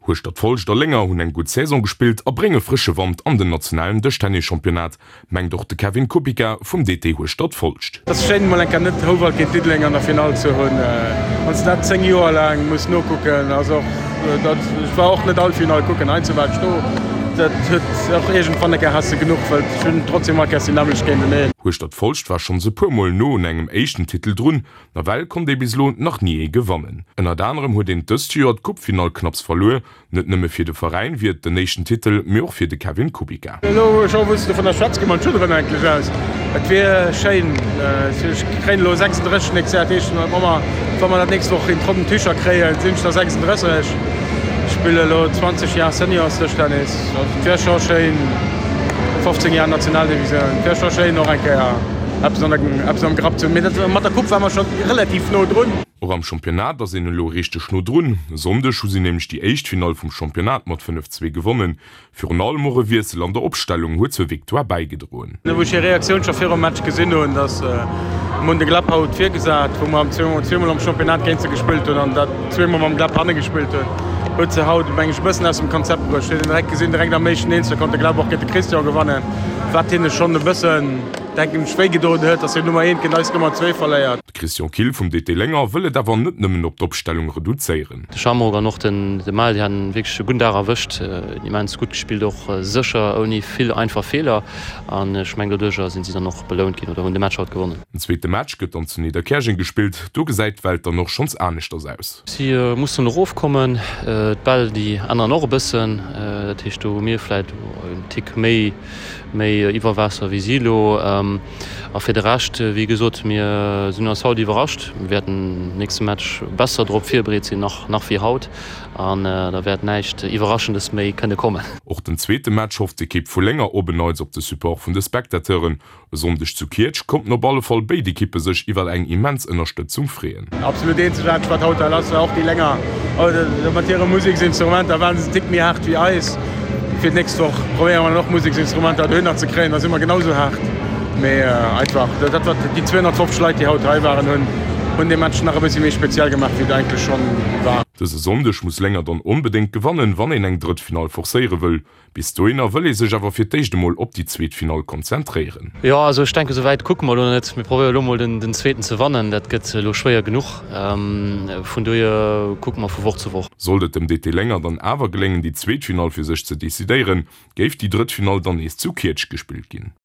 Hueschtert-Folscht a Lénger hunn eng gutt Saison gespillt a brénge frësche Wand an den nationalen Dëschtennis-Championnat, mengt och de Kevin Kupica vum DT Hueschtert-Folscht. Et ass schéin emol eng Kéier net Houwald géint Diddeleng an der Finall ze hunn. Wann s de dat 10 Joer laang muss nokucken, ass och dat, ech war och net all Finall kucken, heiansdo war ech do, dat huet och iergendwann eng Kéier has de genuch, well ech hunn trotzdem all Kéiers déi nämmlecht géinteneen. Hueschtert-Folscht war schonns e puer Mol no un engem éischten Titel drun, Nawell konnt ee bis elo nach ni ee gewannen. Ënnert anerem huet een dëst Joer d'Coupefinall knapps verluer. Net nëmme fir de Veräin wier et den éischten Titel, mee och fir de Kevin Kubica. Elo scho wou s de dovunner schwätz, gi mer d'Schudderen eigentlech aus. Et wier schéin, ech kréien elo 36 nächst Joer, dat heescht wa mer wa mer dat nächst Woch in trockenen Tücher kréien, sinn ech da 36. Ech spille elo 20 Jar Seniors-Dëschtennis, also et wier scho schéin, 15 Jar Nationaldivisioun, et wier scho schéin och eng Kéier. Eppes an der, eppes am Grapp ze hunn. Mee dat, mat der Coupe ware mer scho relativ no drun. Och am Championnat ass een elo richteg no drun. E Sonndeg hu si nämlech déi éischt Finall vum Championnat mat 5, 2 gewonnen. Virun allem och e Wiessel an der Opstellung huet zur Victoire bäigedroen. Wou ech hir Reaktioun scho virum Match gesinn hunn, dass mer hunn de Gleb haut virgesat, wou mer zweemol am Championnat géint se gespillt hunn an dat zweemol mam Gleb hanne gespillt hunn, huet se haut, meng ech, e bëssen aus dem Konzept bruecht. Huet een direkt gesinn, direkt am éischten Eenzel konnt de Gleb och géint de Christian gewannen, wat hinne schonn e bëssen, denken ech, wéi gedoen huet, dass hir Nummer eent géint eis Nummer zwee verléiert. De Christian Kill vum DT Lénger wëll et awer net nëmmen op d'Opstellung reduzéieren. De Shamrock an och den de Mal, déi haten wierklech e gudden Dag erwëscht, immens gutt gespillt, och sécher, ouni vill einfach Feeler an ech mengen doduercher sinn si dann och belount ginn oder hunn de Match haut gewonnen. Den zweete Match gëtt dann zu Nidderkäerjeng gespillt, do gesäit d'Welt dann och schonns aneschters aus. Si mussen erofkommen, d'Bäll déi änneren och e bëssen, dat heescht do hu mir vläit en Tick méi méi iwwer Waasser wéi si elo. A fir de Rescht, wéi gesot, mir sinn eis haut iwwerrascht. Mir wäerten nächste Match besser drop virbereet sinn nach nach wéi haut an da wäert näischt Iwwerraschendes méi kënne kommen. Och den zweete Match hofft d'Ekipp vu Lénger op en Neits op de Support vun de Spectateuren. E Sonndeg zu Kietsch konnten op alle Fall béid Ekippe sech iwwer eng immens Ënnerstëtzung freeën. Absolut eenzegaarteg wat haut hei lass war, och déi Lénger mat hire Museksinstrumenter waren se en Tick méi haart wéi eis. Fir d'nächst Woch probéiere mer dann och Museksinstrumenter dohinner ze kréien, da si mer genau sou haart. Mee einfach dat wat déi 250 Leit déi haut hei waren hunn, hunn dee Match nach e bëssi méi speziell gemaach wéi et eigentlech schonn war. Dëse Sonndeg muss Lénger dann onbedéngt gewannen, wann een eng drëtt Finall forcéiere wëll. Bis dohinner wëll ee sech awer fir d'éischt emol op déi zweet Finall konzentréieren. Jo, also ech denken, esou wäit kucke mer elo net. Mir probéiere elo mol den zweeten ze wannen. Dat gëtt elo schwéier genuch. Vun dohier kucke mer vu Woch zu Woch. Sollt et dem DT Lénger dann awer geléngen, déi zweet Finall fir sech ze decidéieren, géif déi drëtt Finall dann nees zu Kietsch gespillt ginn.